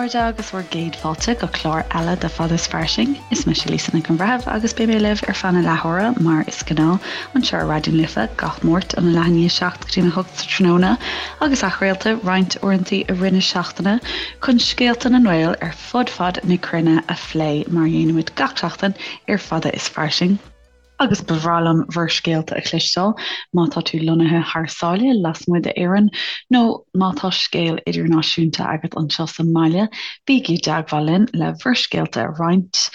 chairde agus bhur gcéad fáilte go clár eile de Fada is Fairsing. Is mise Lisa Nic an Bhreithimh agus beidh mé libh ar feadh na leathuaire mar is gnáth anseo ar Raidió na Life gach Máirt óna leath i ndiaidh 7 go dtí a 8 sa tráthnóna agus athchraolta roinnt uaireanta i rith na seachtaine chun scéalta na nGael ar fud fad na cruinne a phlé mar a dhéanaimid gach seachtain ar Fada is Fairsing. Agus ba bhreá liom bhur scéalta a chloisteáil má tá tú lonnaithe thar sáile, lasmuigh d'Éirinn, nó má tá scéal idirnáisiúnta agat anseo sa mbaile, bígí i dteagmháil linn le bhur scéalta a roinnt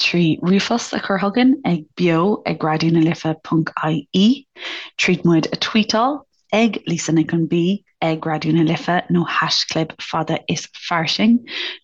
trí ríomhphost a chur chugainn ag beo ag raidionalife.ie, tríd muid a tweetáil ag Lisa Nic an B ag Raidió na Life nó haischlib fada is fairsing,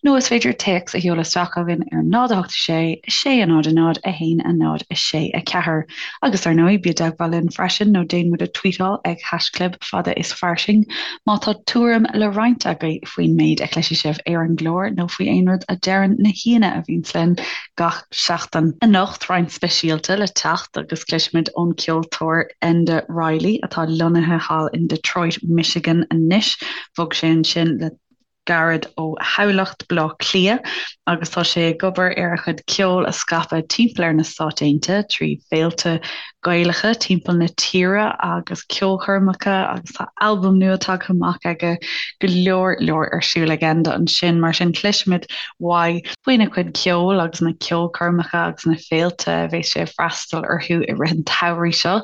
nó is féidir téacs a sheoladh isteach chugainn ar 0 8 6 6 0 0 1 0 6 4. Agus ar ndóigh, bí i dteagmháil linn freisin nó déan muid a tweetáil ag haischlib fada is fairsing má tá tuairim le roinnt agaibh faoin méid a chloisfidh sibh ar an gclár nó faoi aon rud a deireann na haíonna a bhíonns linn gach seachtain. Anocht, roinnt speisialta le teacht agus cloisfimid ón gceoltóir Enda Reilly, atá lonnaithe thall in Detroit, Michigan anois. Bhog sé ansin le gairid ó Thamhlacht, Baile Átha Cliath, agus tá sé ag obair ar a chuid ceoil a scaipeadh timpeall ar na Stáit Aontaithe trí féilte Gaelacha timpeall na tíre agus ceolchoirmeacha agus tá albam nua tagtha amach aige, go leor leor ar siúl ag Enda ansin. Mar sin cloisfimid uaidh faoina chuid ceoil agus na ceolchoirmeacha agus na féilte a bheas sé ag freastal orthu i rith an tsamhraidh seo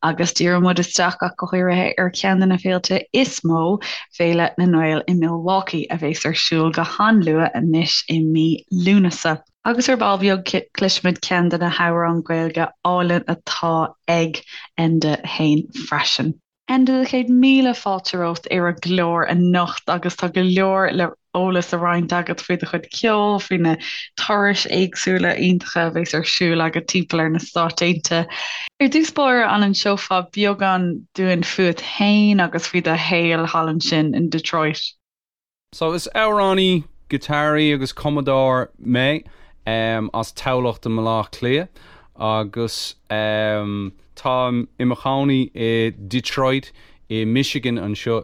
agus díreoidh muid isteach ach go háirithe ar cheann de na féilte is mó, Féile na nGael i Milwaukee a bheas ar siúl go han-luath anois i mí Lúnasa. Agus ar ball beag cloisfimid ceann de na hamhráin Ghaeilge álainn atá ag Enda féin freisin. Enda, 100,000 fáilte romhat ar an gclár anocht agus tá go leor le eolas a roinnt agat faoi do chuid ceoil, faoi na turais éagsúla iontacha a bheas ar siúl agat timpeall ar na Stáit Aontaithe. Ar dtús báire, an inseofá beagán dúinn fút féin agus faoi do shaol thall ansin in Detroit? So is amhránaí, giotáraí agus cumadóir mé as Tamhlacht i mBaile Átha Cliath agus táim i mo chónaí i Detroit i Michigan anseo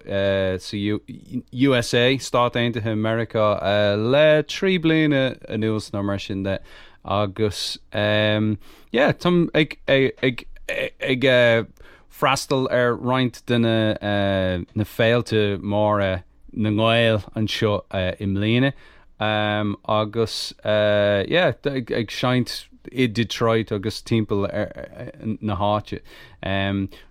sa USA, Stáit Aontaithe Meiriceá, le 3 bliana anuas nó mar sin de agus yeah táim ag ag ag freastal ar roinnt de na féilte móra na nGael anseo i mbliana agus yeah ag seinnt i Detroit agus timpeall na háite.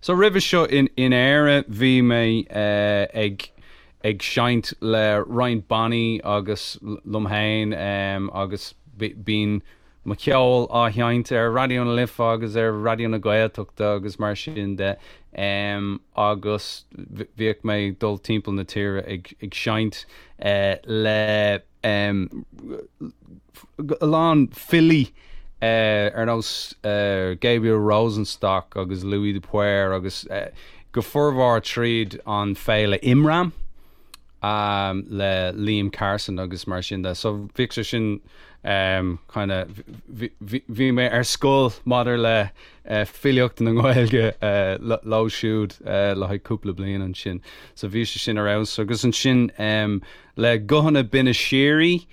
So roimhe seo in Éire bhí mé ag ag seinnt le roinnt bannaí agus liom féin agus bíonn mo cheol á sheinnt ar Raidió na Life agus ar Raidió na Gaeltachta agus mar sin de agus bhíodh mé ag dul timpeall na tíre ag ag seinnt le a lán filí ar nós Gabriel Rosenstock agus Louis de Paor agus go formhór tríd an féile Imram. le Liam Carson agus mar sin de. So bhíodh sé sin kind of bhí mé ar scoil maidir le filíocht na Gaeilge leo siúd le haghaidh cúpla bliain ansin. So bhí sé sin ar fheabhas agus ansin le Guthanna Binne Síoraí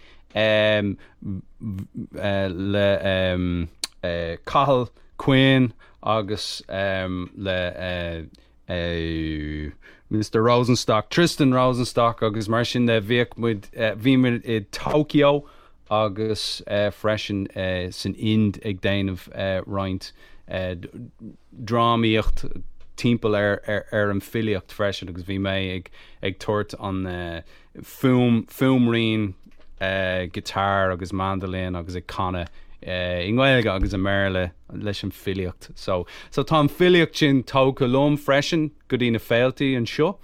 le Cathal Quinn agus le Mister Rosenstock, Tristan Rosenstock agus mar sin de bhíodh muid, bhí muid i Tokyo agus freisin san Ind ag déanamh roinnt drámaíocht timpeall ar ar an filíocht freisin agus bhí mé ag ag tabhairt an fuaim, fuaimrian guitar agus mandolin agus ag canadh i nGaeilge agus i mBéarla leis an filíocht. So, so tá an filíocht sin tógtha liom freisin go dtí na féiltí anseo.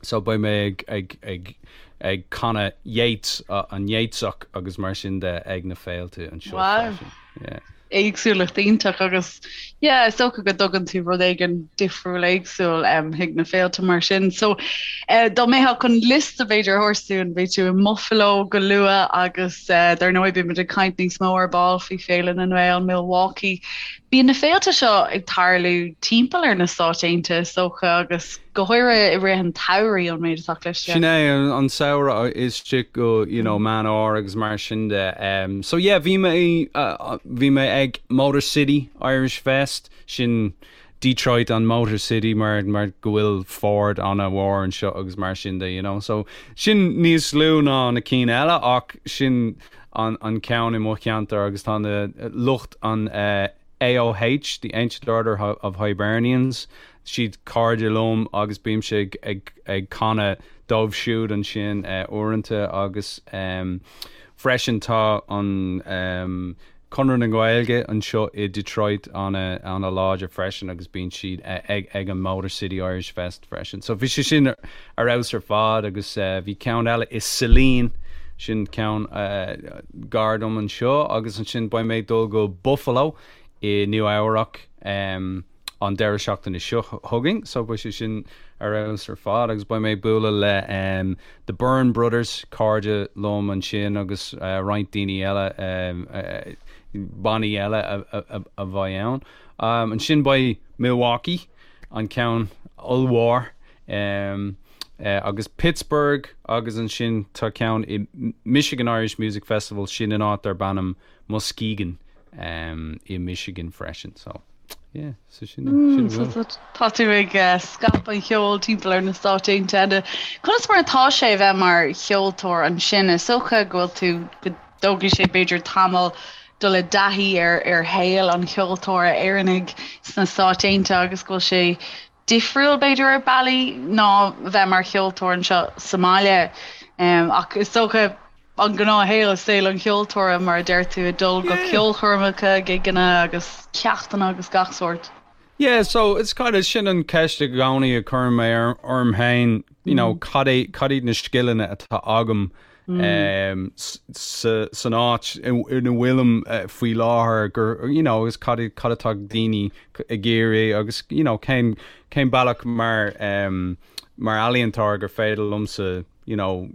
So beidh mé ag, ag, ag, ag canadh Yeats, an Yeatsach agus mar sin de ag na féilte anseo Wow. freisin. Yeah. éagsúlacht iontach agus yeah is dócha go dtugann tú rud éigin difriúil éagsúil um, chuig na féilte mar sin. So uh, dá mbeifeá chun liosta b'fhéidir a thabhairt dúinn beidh tú i mBuffalo go luath agus uh, dar ndóigh beidh muid ag caint níos mó ar ball faoi Féile na nGael Milwaukee. Bíonn na féilte seo ag tarlú timpeall ar na Stáit Aontaithe, is dócha, agus go háirithe i rith an tsamhraidh, ón méid atá cloiste. Sin é, an samhradh istigh go, you know, Meán Fhómhair agus mar sin de. So yeah, bhí mé, bhí mé ag Motor City Irish Fest, sin Detroit an Motor City mar, mar go bhfuil Ford an-mhór anseo agus mar sin de, you know. So sin níos lú ná na cinn eile ach sin an an ceann i mo cheantar agus tá na lucht an AOH, the Ancient Order of Hibernians, siad cairde liom agus bímse ag ag ag canadh dóibh siúd ansin uaireanta agus freisin tá an Conradh na Gaeilge anseo i Detroit an-láidir freisin agus bíonn siad ag ag an Motor City Irish Fest freisin. So bhí sé sin ar fheabhas ar fad agus bhí ceann eile i Saline, sin ceann gar dom anseo agus ansin beidh mé ag dul go Buffalo i Nua Eabhrac. an deireadh seachtaine seo chugainn so beidh sé sin ar fheabhas ar fad agus beidh mé ag bualadh le The Byrne Brothers, cairde liom ansin agus roinnt daoine eile, bannaí eile a bheidh ann. Ansin beidh Milwaukee, an ceann ollmhór, agus Pittsburgh agus ansin tá ceann i Michigan Irish Music Festival, sin in áit darb ainm Muskegon i Michigan freisin so. Yeah, so sin sin a bhfuil. Tá tú ag scaipeadh an cheoil timpeall ar na Stáit Aontaithe. Conas mar atá sé a bheith mar cheoltóir ansin? Is dócha go bhfuil tú, go dtógfaidh sé b'fhéidir tamall dul i dtaithí ar ar shaol an cheoltóra Éireannaigh sna Stáit Aontaithe agus go bhfuil sé difriúil b'fhéidir ar bealaí ná a bheith mar cheoltóir anseo sa mbaile. Ach is dócha an gnáthshaol, saol an cheoltóra mar a deir tú, ag dul go ceolchoirmeacha, gigeanna agus ceachtanna agus gach sórt. Yeah, so it's kind of sin an ceist i gcónaí a chuireann mé orm féin, you know, cad é, cad iad na scileanna atá agam san áit ina bhfuilim faoi láthair gur, you know, agus cad cad atá daoine ag iarraidh agus, you know, cén, cén bealach mar, mar ealaíontóir gur féidir liomsa, you know,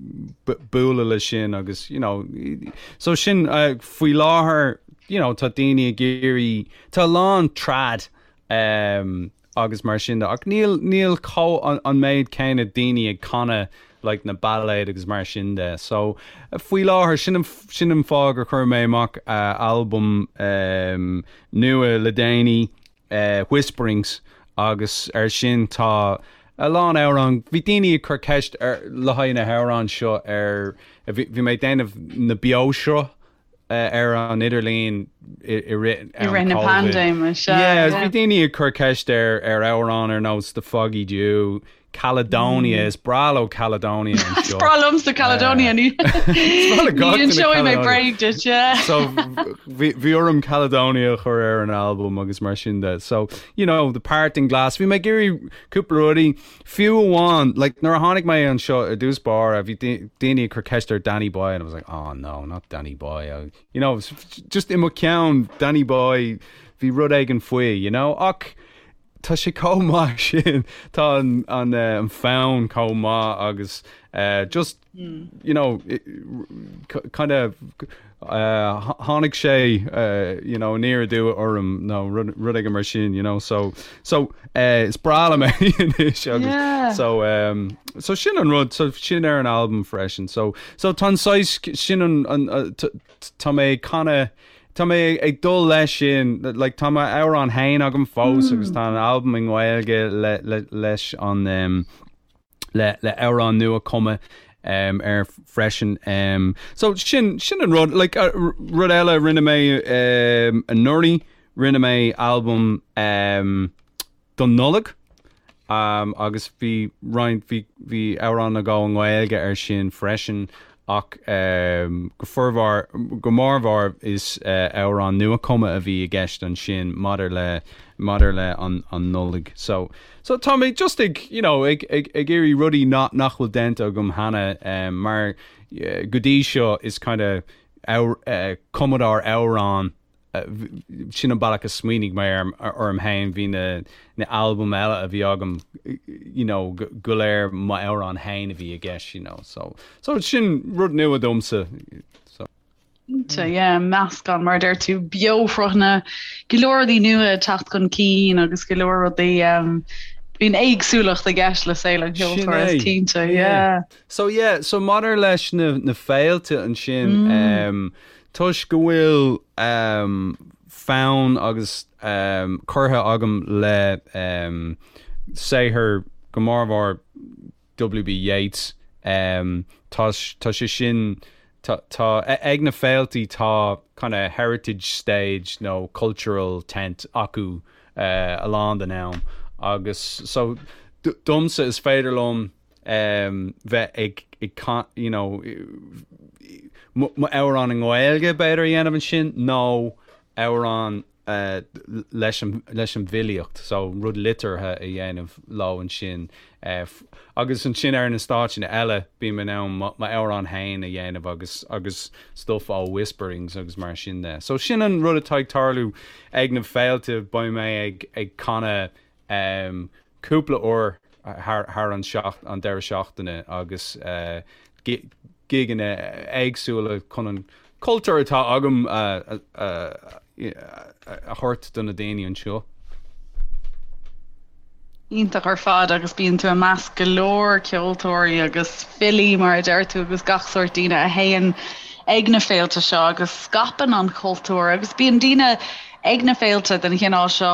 bualadh leis sin agus, you know, so sin faoi láthair, you know, tá daoine ag iarraidh, tá a lán trad um, agus mar sin de ach níl, níl chomh an, an méid céanna daoine ag canadh like na bailéid agus mar sin de. So faoi láthair sin an, sin an fáth gur chuir mé amach uh, albam um, nua le déanaí Whisperings agus ar sin tá a lán amhrán, bhí daoine ag cur ceist ar le haghaidh na hamhráin seo ar, bhí mé ag déanamh na beoshruth ar an idirlíon i rith I rith na paindéime, sea. Yeah, bhí daoine ag cur ceist ar ar amhrán ar nós The Foggy Dew, Caledonia, is breá leo Caledonia anseo. Is breá liomsa Caledonia, ní inseoidh mé bréag duit, yeah. So bhí orm Caledonia a chur ar an albam agus mar sin de. So, you know, The Parting Glass, bhí mé ag iarraidh cúpla rudaí, fiú amháin, like, nuair a tháinig mé anseo i dtús báire, bhí daoine ag cur ceist ar Danny Boy and I was like, oh no, not Danny Boy. You know, just i mo cheann, Danny Boy, bhí rud éigin faoi, you know, ach Tá sé chomh maith sin, tá an fonn chomh maith agus just, you know, kind of tháinig sé, you know, aniar aduaidh orm nó rud éigin mar sin, you know, so, so is breá liom é anois agus so, so sin an rud, so sin ar an albam freisin, so, so tá an saghas, sin an, tá mé ag canadh, Tá mé ag dul leis sin, like tá m'amhrán féin agam fós agus tá an albam i nGaeilge le, le, leis an um, le, le amhrán nua cumtha um, air freisin. Um, so sin, sin an rud, like, uh, rud eile rinne mé um, anuraidh, rinne mé albam um, don Nollaig agus bhí roinnt, bhí, bhí amhrán nó dhó i nGaeilge air sin freisin ach go formhór, go mórmhór is amhrán nua-chumtha a bhí i gceist ansin maidir le, maidir le an, an Nollaig. So, so tá mé just ag, you know, ag, ag, ag iarraidh rudaí nach, nach bhfuil déanta agam cheana mar go dtí seo is kind of cumadóir amhrán Sin an bealach a smaoinigh mé orm féin, bhí na albaim eile a bhí agam, you know, go léir m'amhráin féin a bhí i gceist, you know, so, so sin rud nua domsa, so. Cinnte, yeah, meascán, mar a deir tú, beoshruthanna, go leor rudaí nua ag teacht chun cinn agus go leor rudaí, bíonn éagsúlacht i gceist le saol an cheoltóra, is cinnte, yeah. So yeah, so maidir leis na, na féilte ansin, mm. toisc go bhfuil um, fonn agus um, curtha agam le um, saothar go mórmhór W.B. Yeats, um, tá, tá sé sin, tá, tá, ag na féiltí tá kind of heritage stage nó cultural tent acu uh, a lán den am agus so domsa is féidir liom um, bheith ag, ag you know, mo amhrán i nGaeilge b'fhéidir a dhéanamh ansin nó amhrán leis an leis an bhfilíocht so rud liteartha a dhéanamh leo ansin agus ansin ar na stáitseanna eile bím in ann m'amhrán féin a dhéanamh agus agus stuff ó Whisperings agus mar sin de. So sin an rud atá ag tarlú ag na féilte beidh mé ag ag canadh cúpla uair thar thar an seacht an deireadh seachtaine agus gigeanna éagsúla chun an cultúr atá agam a thabhairt do na daoine anseo. Iontach ar fad agus bíonn tú i measc go leor ceoltóirí agus filí mar a deir tú agus gach sórt daoine a théann ag na féilte seo agus scaipeann an cultúr agus bíonn daoine ag na féilte den chineál seo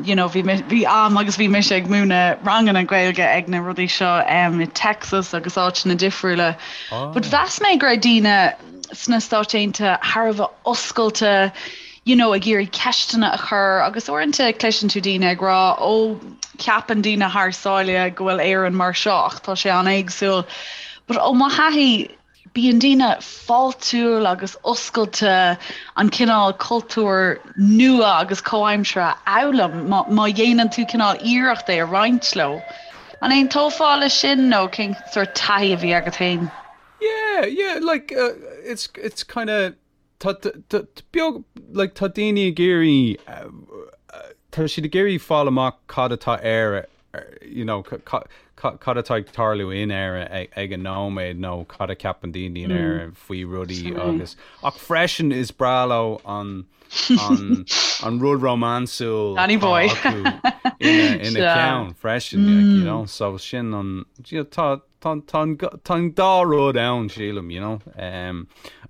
you know bhí bhí am agus bhí mise ag múineadh ranganna Gaeilge ag na rudaí seo i Texas agus áiteanna difriúla. But mheas mé go raibh daoine sna Stáit Aontaithe thar a bheith oscailte you know ag iarraidh ceisteanna a chur agus uaireanta cloiseann tú daoine ag rá ó ceapann daoine thar sáile go bhfuil Éirinn mar seo ach tá sé an-éagsúil. But ó mo thaithí Bíonn daoine fáiltiúil agus oscailte an cineál cultúr nua agus comhaimseartha a fhoghlaim má dhéanann tú cineál iarracht é a roinnt leo. An aontófá leis sin nó cén sórt taithí a bhí agat féin? Yeah, yeah, like it's it's kind of Tá beag, like tá daoine ag iarraidh, tá siad ag iarraidh fáil amach cad atá Éire, you know, cad atá ag tarlú in Éire ag an nóiméad nó cad a ceapann daoine in Éire faoi rudaí agus, ach freisin is breá leo an, an, an rud rómánsúil Danny boy. atá acu ina, ina ceann freisin, like, you know, so sin an, you know, tá, Tá an dá rud ann, sílim, you know.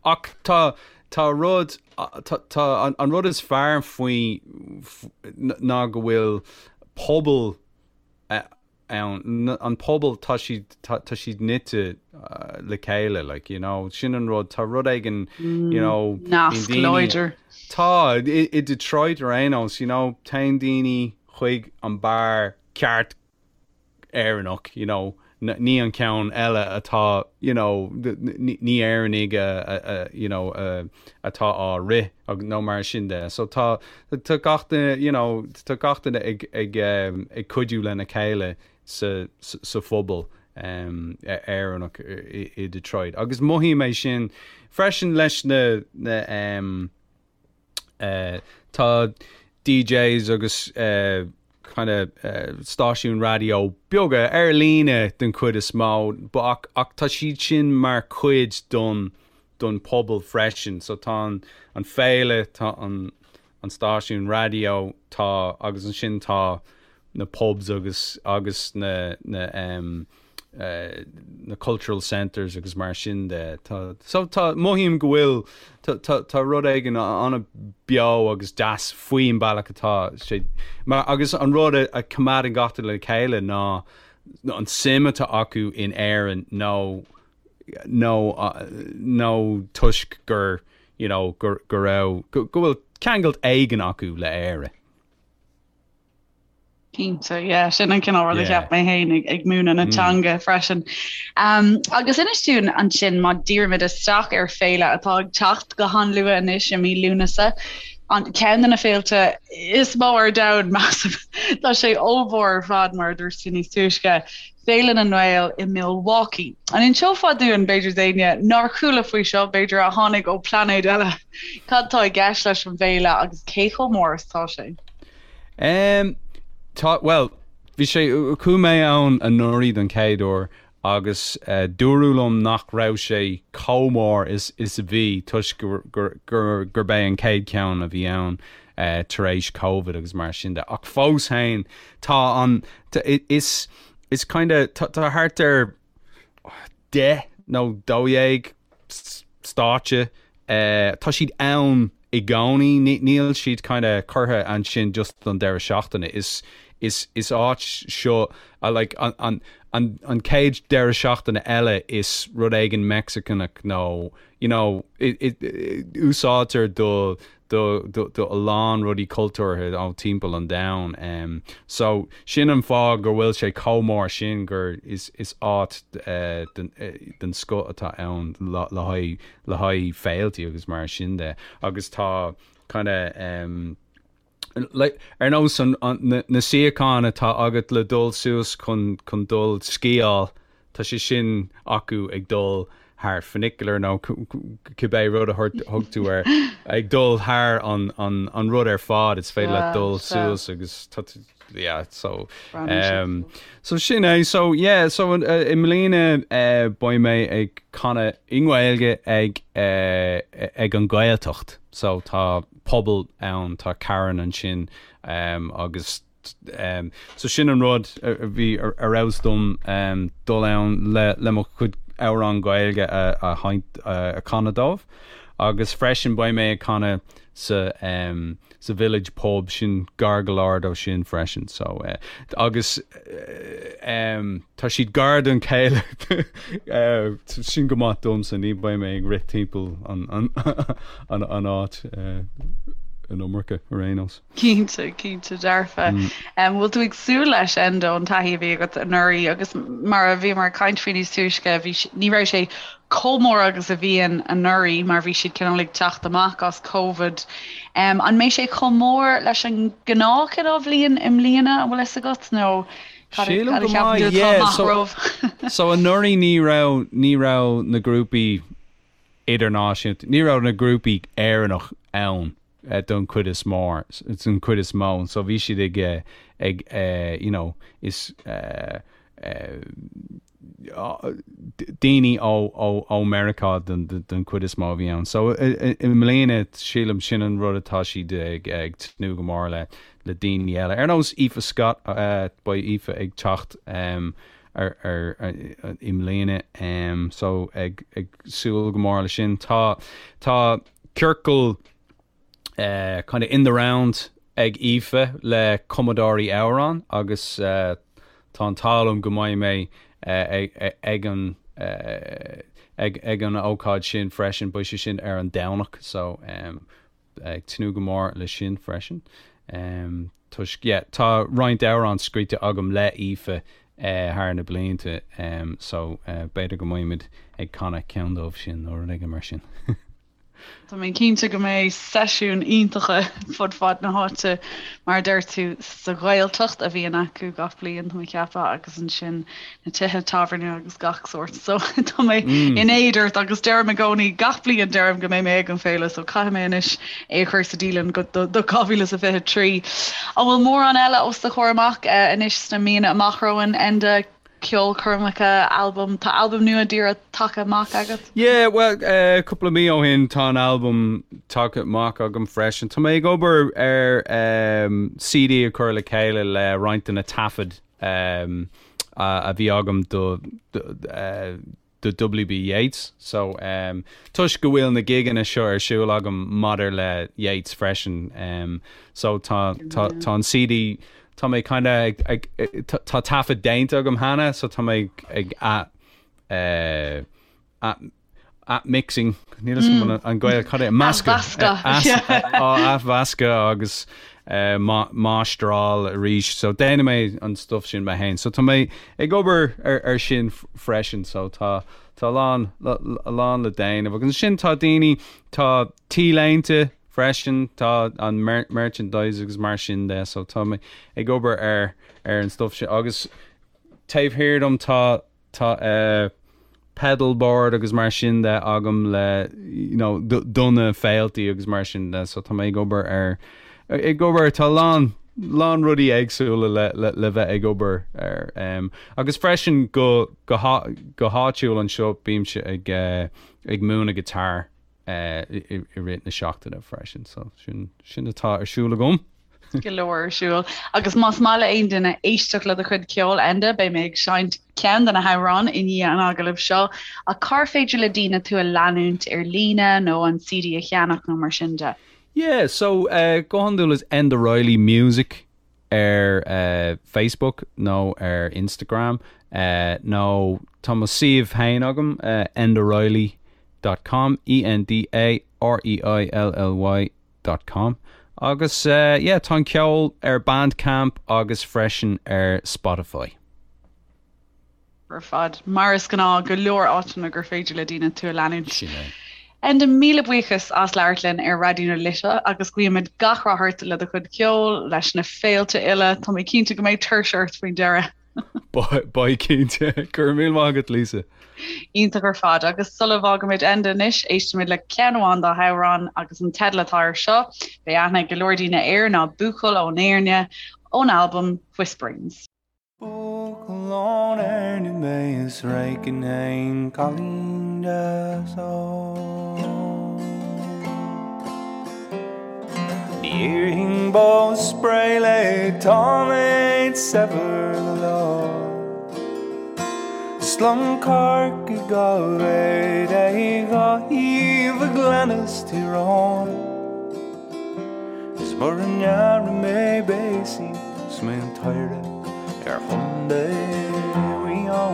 Ach tá, tá rud, tá, an rud is fearr faoi ná go bhfuil pobal ann, an pobal, tá siad, tá siad nite le chéile, like, you know, sin an rud, tá rud éigin, you know, Nasc láidir. Tá, i Detroit ar aon nós, you know, téann daoine chuig an beár ceart Éireannach, you know, ní an ceann eile atá, you know, ní Éireannaigh a, you know, atá á rith nó mar sin de. So tá, tá gach duine, you know, tá gach duine ag, ag, ag cuidiú lena chéile sa, sa phobal Éireannach i Detroit. Agus mothaím é sin freisin leis na, na, Tá DJs agus kind of stáisiúin raidió beaga ar líne den chuid is mó ach ach tá siad sin mar chuid don don pobal freisin. So tá an an féile, tá an an stáisiún raidió, tá agus ansin tá na pubs agus agus na na na cultural centres agus mar sin de. Tá, so tá, mothaím go bhfuil, tá, tá, tá rud éigin an-bheo agus deas faoin bealach atá sé, mar, agus an rud a, a choimeádann gach duine le chéile ná an suim atá acu in Éirinn nó, nó, nó toisc gur, you know, gur, go raibh, go, go bhfuil ceangal éigin acu le Éire. Cinnte, yeah, sin an cineál rud a cheap mé féin ag múineadh na teanga freisin. Um, agus inis dúinn ansin má dhírímid isteach ar féile atá ag teacht go han-luath anois i mí Lúnasa, an ceann de na féilte is mó ar domhan measaim. Tá sé ollmhór ar fad mar a dúirt tú níos túisce. Féile na nGael i Milwaukee. An inseofá dúinn, b'fhéidir d'éinne nár chuala faoi seo, b'fhéidir a tháinig ó pláinéad eile, cad tá i gceist leis an bhféile agus cé chomh mór is atá sé? Um, tá, well, bhí sé, chuaigh mé ann anuraidh don chéad uair. Agus dúradh liom nach raibh sé chomh mór is is a bhí toisc gurb é an chéad cheann a bhí ann tar éis Covid agus mar sin de. Ach fós féin tá an is is kinda tá thart ar 10 nó 12 stáitse. Tá siad ann i gcónaí, níl siad kinda curtha ansin just don deireadh seachtaine. Is is is áit seo like an an an an chéad deireadh seachtaine eile is rud éigin Meicsiceanach nó you know it it úsáidtear do do do do a lán rudaí cultúrtha ó timpeall an domhain. So sin an fáth go bhfuil sé chomh mór sin gur is is áit den den scoth atá ann le le haghaidh le haghaidh féiltí agus mar sin de. Agus tá kinda like ar nós an an na na suíocháin atá agat le dul suas chun chun dul sciáil Tá sé sin acu ag dul thar funicular nó cibé rud a thug tú air, ag dul thar an rud ar fad, is féidir leat dul suas agus tá tú, yeah, so, so sin é, so yeah, so i mbliana beidh mé ag canadh i nGaeilge ag ag an Ghaeltacht, so tá pobal ann, tá carn ansin agus So sin an rud a bhí ar fheabhas dom dul ann le mo chuid amhrán Gaeilge a a chanadh dóibh. Agus freisin beidh mé ag canadh sa sa Village Pub, sin gar go leor dó sin freisin. So agus tá siad gar don chéile sin go maith domsa, ní beidh mé ag rith timpeall an an an áit an iomarca ar aon nós. Cinnte, cinnte dearfa. Bhfuil tú ag súil leis, Enda, ón taithí a bhí agat anuraidh agus mar a bhíomar ag caint faoi níos túisce, bhí, ní raibh sé chomh mór agus a bhíonn anuraidh mar bhí siad cineál ag teacht amach as Covid. An mbeidh sé chomh mór leis an ngnáth chineál bhliain i mbliana, an bhfuil fhios agat, nó cad a Sílim cad a go cheapann tú maith, atá yeah. amach So, romhaibh? so anuraidh ní raibh, ní raibh na grúpaí idirnáisiúnta, ní raibh na grúpaí Éireannach ann. don chuid is mór, don chuid is mó, so bhí siad ag, ag you know, is daoine ó, ó, ó Meiriceá don, don chuid is mó a bhí ann. So i mbliana sílim sin an rud atá siad ag, ag tnúth go mór le, le daoine eile. Ar nós Aoife Scott, beidh Aoife ag teacht ar, ar, i mbliana, so ag, ag súil go mór le sin. Tá, tá ciorcal kind of in the round ag Aoife le cumadóirí amhrán agus tá an t-ádh liom go mbeidh mé ag an ag an ócáid sin freisin, beidh sé sin ar an Domhnach so ag tnúth go mór le sin freisin. Toisc yeah tá roinnt amhrán scríte agam le Aoife thar na blianta so b'fhéidir go mbeimid ag canadh ceann dóibh sin nó rud éigin mar sin. Tá mé cinnte go mbeidh seisiúin iontacha fud fad na háite, mar a deir tú, sa Ghaeltacht a bhíonn acu gach bliain, tá mé ag ceapadh, agus ansin na tithe tábhairne agus gach sórt. So tá mé in éad ort agus deirim i gcónaí gach bliain deirim go mbeidh mé ag an féile, so caithfidh mé anois é a chur sa dialann do 2023. An bhfuil mórán eile os do chomhair amach anois sna míonna amach romhainn, Enda? Ceolchoirmeacha, albam, tá albam nua díreach tagtha amach agat? Yeah, bhuel, cúpla mí ó shin tá an albam tagtha amach agam freisin. Tá mé ag obair ar CD a chur le chéile le roinnt de na taifid a bhí agam do do W.B. Yeats. So, toisc go bhfuil na gigeanna seo ar siúl agam maidir le Yeats freisin, so tá, tá, tá an CD, tá mé kinda ag, ag, tá taifead déanta agam cheana, so tá mé ag ath, eh, ath, ath-mixing, níl fhios agam an Gael, cad é, meascadh, athmheascadh agus máistreáil arís. So déanfaidh mé an stuff sin mé féin. So tá mé ag obair ar sin freisin. So tá tá a lán a lán le déanamh. Agus ansin tá daoine, tá t-léinte freisin, tá an merchandise agus mar sin de. So tá mé ag obair ar ar an stuff sin. Agus taobh thiar dom tá Tá pedal board agus mar sin de agam le you know do na féiltí agus mar sin de so tá mé ag obair ar ag obair tá a lán. lán rudaí éagsúla le le le bheith ag obair air. Um, agus freisin go go go háitiúil anseo bímse ag uh, ag múineadh guitar uh, i, i rith na seachtaine freisin, so sin sin atá ar siúl agam. Go leor ar siúl. Agus más maith le aon duine éisteacht le do chuid ceoil, Enda, beidh mé ag seinnt ceann de na hamhráin i ndiaidh an agallaimh seo. Ach cár féidir le daoine tú a leanúint ar líne nó an CD a cheannach nó mar sin de? Yeah, so uh, go hiondúil is Enda Reilly Music ar uh, Facebook nó ar Instagram uh, nó tá mo suíomh féin agam uh, endareilly.com E N D A R E I L L Y dot com agus yeah tá an ceol ar Bandcamp agus freisin ar Spotify. Ar fad. Mar is gnáth, go leor áiteanna gur féidir le daoine tú a leanúint. Sin é. Enda, míle buíochas as labhairt linn ar Raidió na Life agus guímid gach rath ort le do chuid ceoil, leis na féilte uile. Tá mé cinnte go mbeidh tuirse ort faoin deireadh. Beidh cinnte. Go raibh míle maith agat Lisa. Iontach ar fad. Agus sula bhfágaimid Enda anois, éistfimid le ceann amháin dá hamhráin agus an teideal atá air seo, beidh aithne ag go leor daoine air, ná Buachaill ón Éirne, ón albam Whisperings. Buachaill ón Éirne mé is réchainn fhéin cailín deas óg. Ní iarrfainn bó spré léi tá mé saibhir go leor. Is liom Corcaigh dhá mhéad é dhá thaobh a Ghleanna 's Tír Eoghain. Is mura ndearna mé béasaí 's mé an t-oidhre ar Chontae Mhaigh Eo.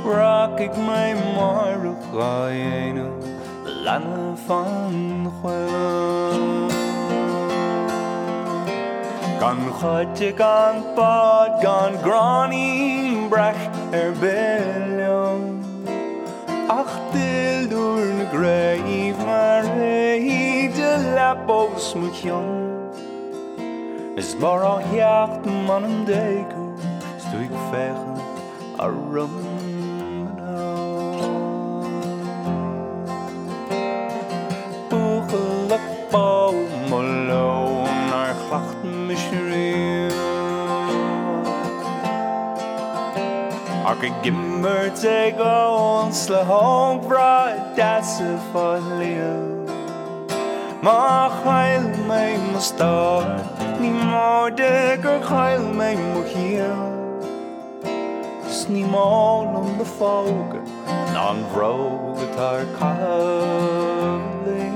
Rachaidh mé amárach dhá dhéanamh leanbh an choill. Gan chait gan bád gan gráinnín breac ar bith liom. Ach duilliúr na gcraobh mar éide leapa os mo chionn. Is mar á theacht m'anam d'éag thú 's tú ag féachaint orm anonn. Buachaill ab ea mo leo nár chleacht mise riamh. Ach ag imirt ag ól 's le hógmhná deasa fá shliabh. Má chaill mé mo stór ní móide gur chaill mé mo chiall. 'S ní mó liom do phóga ná an bhróg atá ar caitheamh liom.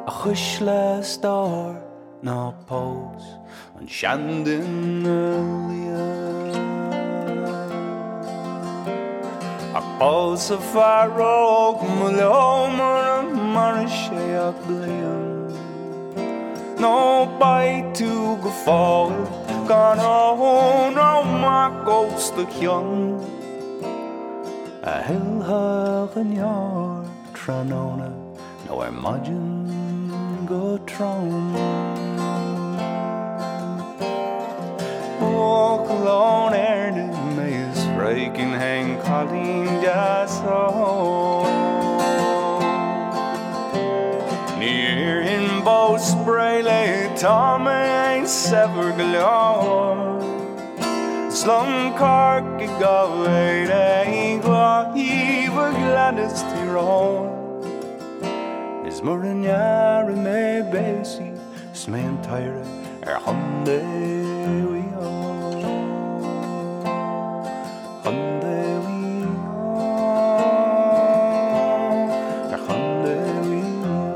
A chuisle a stór ná pós an seanduine liath. Ach pósadh fear óg mo leo mura maire sé ach bliain. Nó beidh tú go fóill gan ól nó mac os do chionn. A thuillfeadh an deoir tráthnóna nó ar maidin go trom. Buachaill ón Éirne mé is phréigfinn fhéin cailín deas óg. Ní iarrfainn bó spré léi tá mé fhéin saibhir go leor. Is liom Corcaigh dhá mhéad é dhá thaobh a Ghleanna 's Tír Eoghain. Is mura ndearna mé béasaí 's mé an t-oidhre ar Chontae Mhaigh Eo. Chontae Mhaigh Eo. Ar Chontae Mhaigh Eo.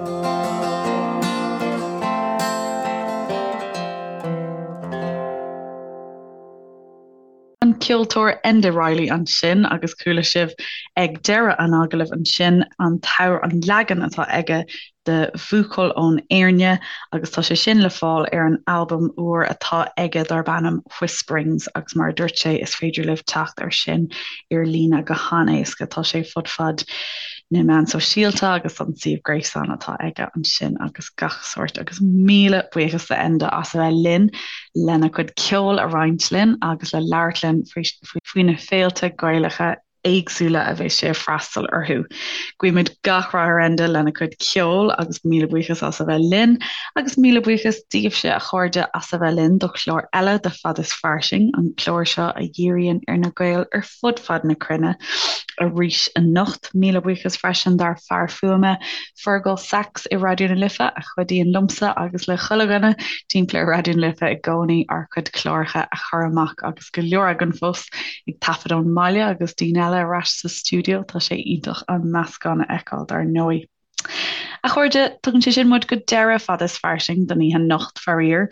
ceoltóir Enda Reilly ansin agus chuala sibh ag deireadh an agallaimh ansin an t-amhrán, an leagan atá aige de Bhuachaill ón Éirne agus tá sé sin le fáil ar an albam úr atá aige darb ainm Whisperings agus mar a dúirt sé is féidir libh teacht air sin ar líne go han-éasca. Tá sé fud fad na meán sóisialta agus an suíomh gréasáin atá aige ansin agus gach sórt agus míle buíochas do Enda as a bheith linn lena chuid ceoil a roinnt linn agus le labhairt linn faoi na féilte Gaelacha éagsúla a bheas sé ag freastal orthu. Guímid gach rath ar Enda lena chuid ceoil agus míle buíochas as a bheith linn agus míle buíochas daoibhse a chairde as a bheith linn do chlár eile de Fad is Fairsing, an clár seo a dhíríonn ar na Gaeil ar fud fad na cruinne arís anocht. Míle buíochas freisin dár fear fuaime, Fergal Sachs i Raidió na Life, a chuidíonn liomsa agus le chuile dhuine timpeall ar Raidió na Life i gcónaí ár gcuid cláracha a chur amach agus go leor againn fós ag taifead ón mbaile agus daoine eile ar ais sa stiúideo. Tá sé iontach an meascán a fheiceáil dar ndóigh. A chairde, tugann sé sin muid go deireadh Fad is Fairsing don oíche anocht, faraor.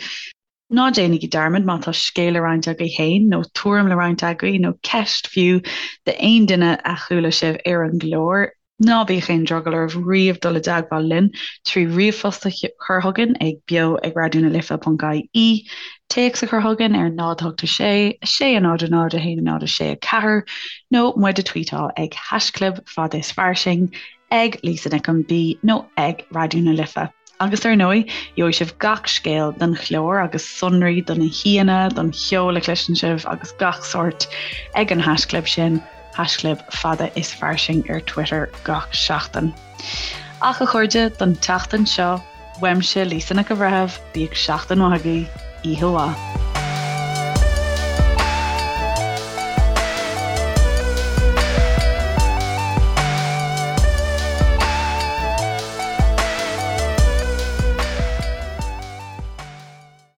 Ná déanaigí dearmad má tá scéal le roinnt agaibh féin, nó tuairim le roinnt agaibh, nó ceist fiú d'aon duine a chuala sibh ar an gclár, ná bíodh aon drogall oraibh riamh dul i dteagmháil linn trí ríomhphost a chur chugainn ag beo ag raidionalife.ie, téacs a chur chugainn ar 0 8 6 6 0 0 1 0 6 4, nó muid a tweetáil ag haischlib fad is fairsing. ag Lisa Nic an B nó ag Raidió na Life. Agus ar ndóigh, gheobhaidh sibh gach scéal don chlár agus sonraí do na haíonna, don cheol a chloiseann sibh agus gach sórt ag an haischlib sin, haischlib fada is fairsing ar Twitter gach seachtain. Ach a chairde, don tseachtain seo, uaimse Lisa Nic an Bhreithimh, bíodh seachtain mhaith agaibh, oíche mhaith.